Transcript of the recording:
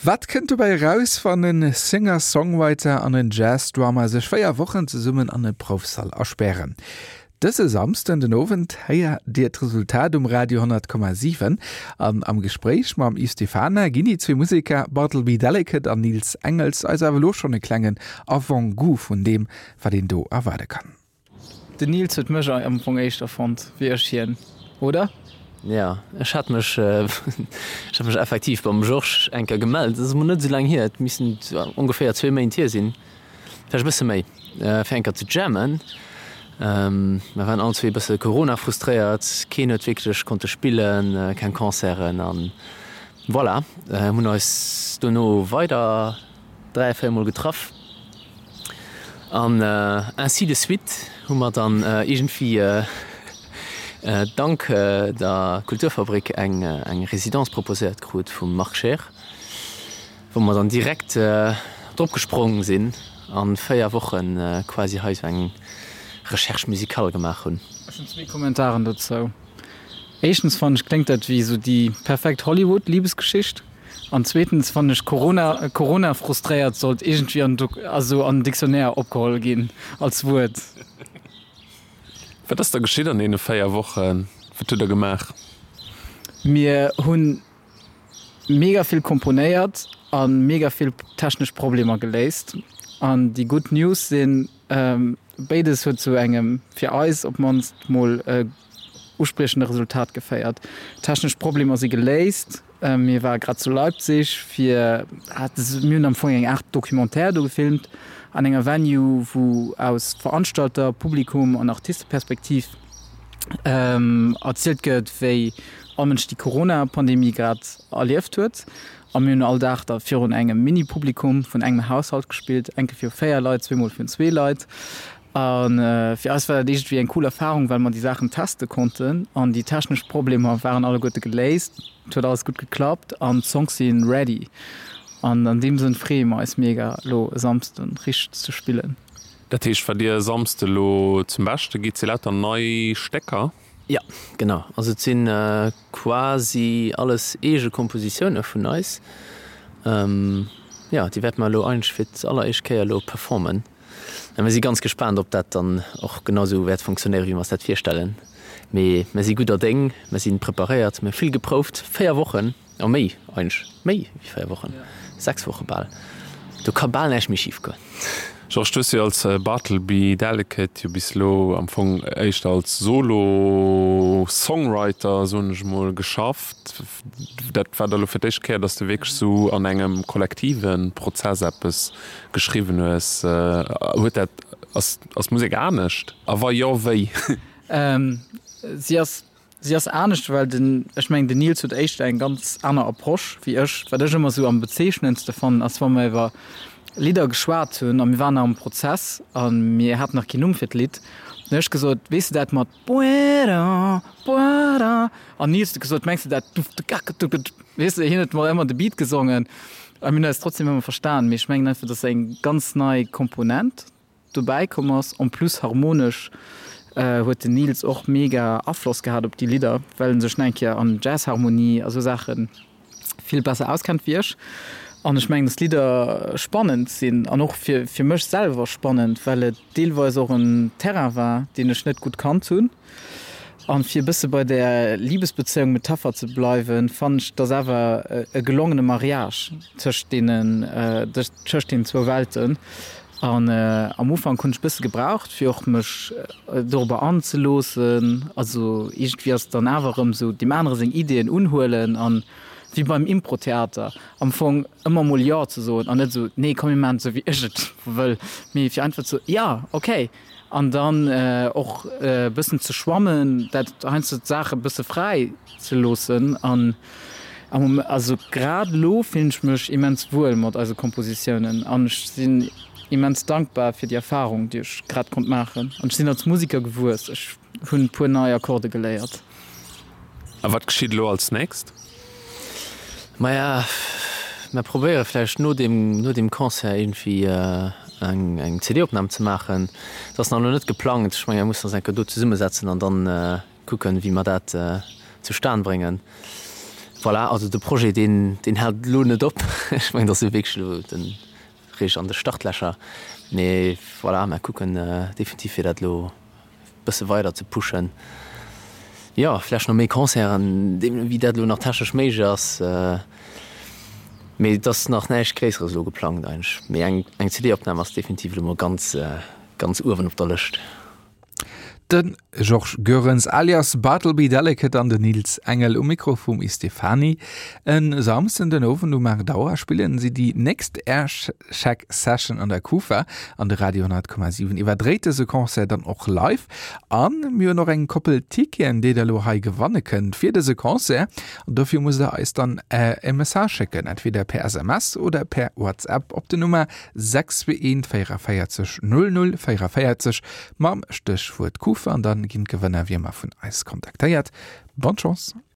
Wat kënnt dobäi eraus, wann e Singer-Songwriter an en Jazz-Drummer sech 4 Wochen zesummen an e Proufsall aspären? Dëse Samsden den Owend héiert Dir d'Resultat um Radio 100,7 an am Gespréich mam Yves Stephana ginn déi zwee Museker Bartleby Delicate an Nils Engels eis awer elo schonn e klengen Avant-goût vun deem, wat een do erwaarde kann. Den Nils huet mech am Fong éischter fonnt wéi ech hien, oder? Jo, ech hat mech, ech hat mech effektiv beim Georges eng Kéier gemellt. Dat ass emol net esou laang hier, et missten ongeféier zwee Méint hier sinn, vläicht e bësse méi, fir eng Kéier ze jammen. Mer waren all zwee e bësse Corona-frustréiert, keen huet wierklech konnte spillen, keng Concerten an voilà, hunn eis dono weider 3, 4 mol getraff an ainsi de suite hu mer dann iergendwéi dank der Kulturfabrik eng eng Résidence proposéiert krut vum Marc Scheer, wou mer dann direkt drop gesprong sinn an 4 Wochen quasi hei sou eng Recherche musicale gemaach hunn. Ech hunn zwee Kommentaren dozou. Éischtens fannen ech kléngt dat wéi sou déi perfekt Hollywood-Liebesgeschicht. An zweetens fannen ech Corona, Corona frustréiert sollt iergendwéi an also an den Dictionnaire opgeholl ginn als Wuert. Wat ass da geschitt an deene 4 Wochen? Wat hutt der gemaach? Mir hunn mega vill komponéiert a mega vill technesch Problemer geléist. An déi gutt News sinn, Béides huet zu engem, fir eis op d'mannst mol, uspriechende Resultat geféiert. Technesch Problemer si geléist. Mir ware grad zu Leipzig fir, mir hunn am Fong eng Aart Documentaire do gefilmt an enger Venue, wou aus Veranstalter-, Publikum an Artisteperspektiv erzielt gëtt, wéi all Mënsch déi Corona-Pandemie grad erlieft huet. A mir hunn all Dag da virun engem Mini-Publikum vun engem Haushalt gespillt, eng Kéier viru 4 Leit, zweemol virun zwee Leit. A fir eis war dat iergendwéi eng cool Erfarung, well mer déi Saachen teste konnten an déi technesch Problemer waren alleguerte geléist. Et huet alles gutt geklappt an d'Songs si ready. An an deem Sënn freeë mer eis mega, elo e Samsden richteg ze spillen. Dat heescht, wat Dir e Samsde elo zum Beschte gitt, si lauter nei Stécker? Jo, genau. Also et si quasi alles eege Kompositioune vun eis. Jo, déi wäerte mer elo eigentlech fir d'alleréischt Kéier elo performen. A mir si ganz gespaant, ob dat dann och genau esou wäert funktionéieren, wéi mer eis dat virstellen. Mee mir si gudder Déng, mir si preparéiert, mir hu vill geprouft, 4 Wochen. Oh méi, eigentlech méi wéi 4 Wochen, 6 Woche bal. Do ka bal näischt méi schif goen. Georges, du hues jo als Bartleby Delicate jo bis elo am Fong éischter als Solo-Songwriter, soen ech emol, geschafft. Dat war da lo fir d'éischt Kéier, dass du wierklech sou an engem kollektive Prozess eppes geschriwwen hues. Huet dat, ass, ass d'Musek anescht? A wa jo, wéi? Si ass Si ass anescht, well den, ech mengen den Nils huet éischter eng ganz aner Approche wéi ech. Wat ech ëmmer esou am bezeechnendste fannen, ass wa mer iwwer Lidder geschwat hunn a mir waren nach am Prozess a mir haten nach keen Numm fir d'Lidd, dann hunn ech gesot, weess de dat mat Buera, buera? An Nils huet gesot, mengs de dat duf-de-gak-du-ge-du? Weess de, hien huet mol ëmmer de Beat gesongen a mir hunn eis trotzdem ëmmer verstan. Mee ech mengen einfach, dat ass eng ganz nei Komponent. Dobäi komm ass. En plus harmonesch huet den Nils och mega Afloss gehat op déi Lidder, well en sech nach eng Kéier an Jazzharmonie a sou Saache vill besser auskennt wéi ech. An ech mengen, dass d'Lidder spannend sinn an och fir fir mech selwer spannend, well et deelweis och en Terrain war, deen ech net gutt kannt hunn. An fir e bësse bei där Libesbezéiung Metapher ze bleiwen, fannen ech, dass awer e gelongene Mariage tëscht deenen tëscht deenen zwou Welten. An am Ufank hunn ech bësse gebraucht fir och mech dorobber anzeloossen. Also iergendwéi ass et dann awer erëm esou deem anere seng Ideeën unhuelen an wéi beim Impro-Theater am Fong ëmmer mol Jo ze soen an net esou nee komm mir maachen et esou wéi ech et wëll, mee fir einfach ze jo okay an dann och e bëssen ze schwammen, dat heiansdo d'Saache bësse fräi ze loossen an am also grad elo fillen ech mech immens wuel mat eise Kompositiounen an ech sinn immens dankbar fir déi Erfarung, déi ech grad konnt maachen an ech sinn als Musiker gewuess, ech hunn e puer nei Akkorde geléiert. A wat geschitt elo als nächst? Maja, mer probéiere vläicht no deem, no deem Concert iergendwéi eng, eng CD-Opnam ze maachen. Dat ass nach elo net geplangt. Ech menge mer mussen eis eng Kéier do zesummesetzen an dann kucken, wéi mer dat zustan bréngen. Voilà, also de Projet deen deen hält elo net op. Ech mengen, dat ass jo wierklech elo de réischt an de Startlächer. Mee voilà, mer kucken definitiv fir dat elo bësse weider ze pushen. Jo, vlächcht nach méi Concerten, deemno wéi dat elo nach technesch méiglech ass. Mee et ass nach näischt Gréisseres elo geplangt eigentlech. Mee eng eng CD-Opnam ass definitiv elo mol ganz ganz uewen op der Lëscht. De Georges Goerens alias Bartleby Delicate an den Nils Engel um Mikro vum Istefani. En Samsden den Owend um 8 Auer spillen si déi nächst Aircheck Session an der Kufa an de Radio 10,7 iwwerdréit dëse Concert dann och live. An mir hunn och eng Koppel Ticketen déi der elo hei gewanne kënnt fir dëse Concert. An dofir musst der eis dann e Message schécken, entweder per SMS oder per WhatsApp op den Nummer 621 44 00 44 mam Stéchwuert Kufa an dann ginn d'Gewënner wéi ëmmer vun eis kontaktéiert. Bonne Chance!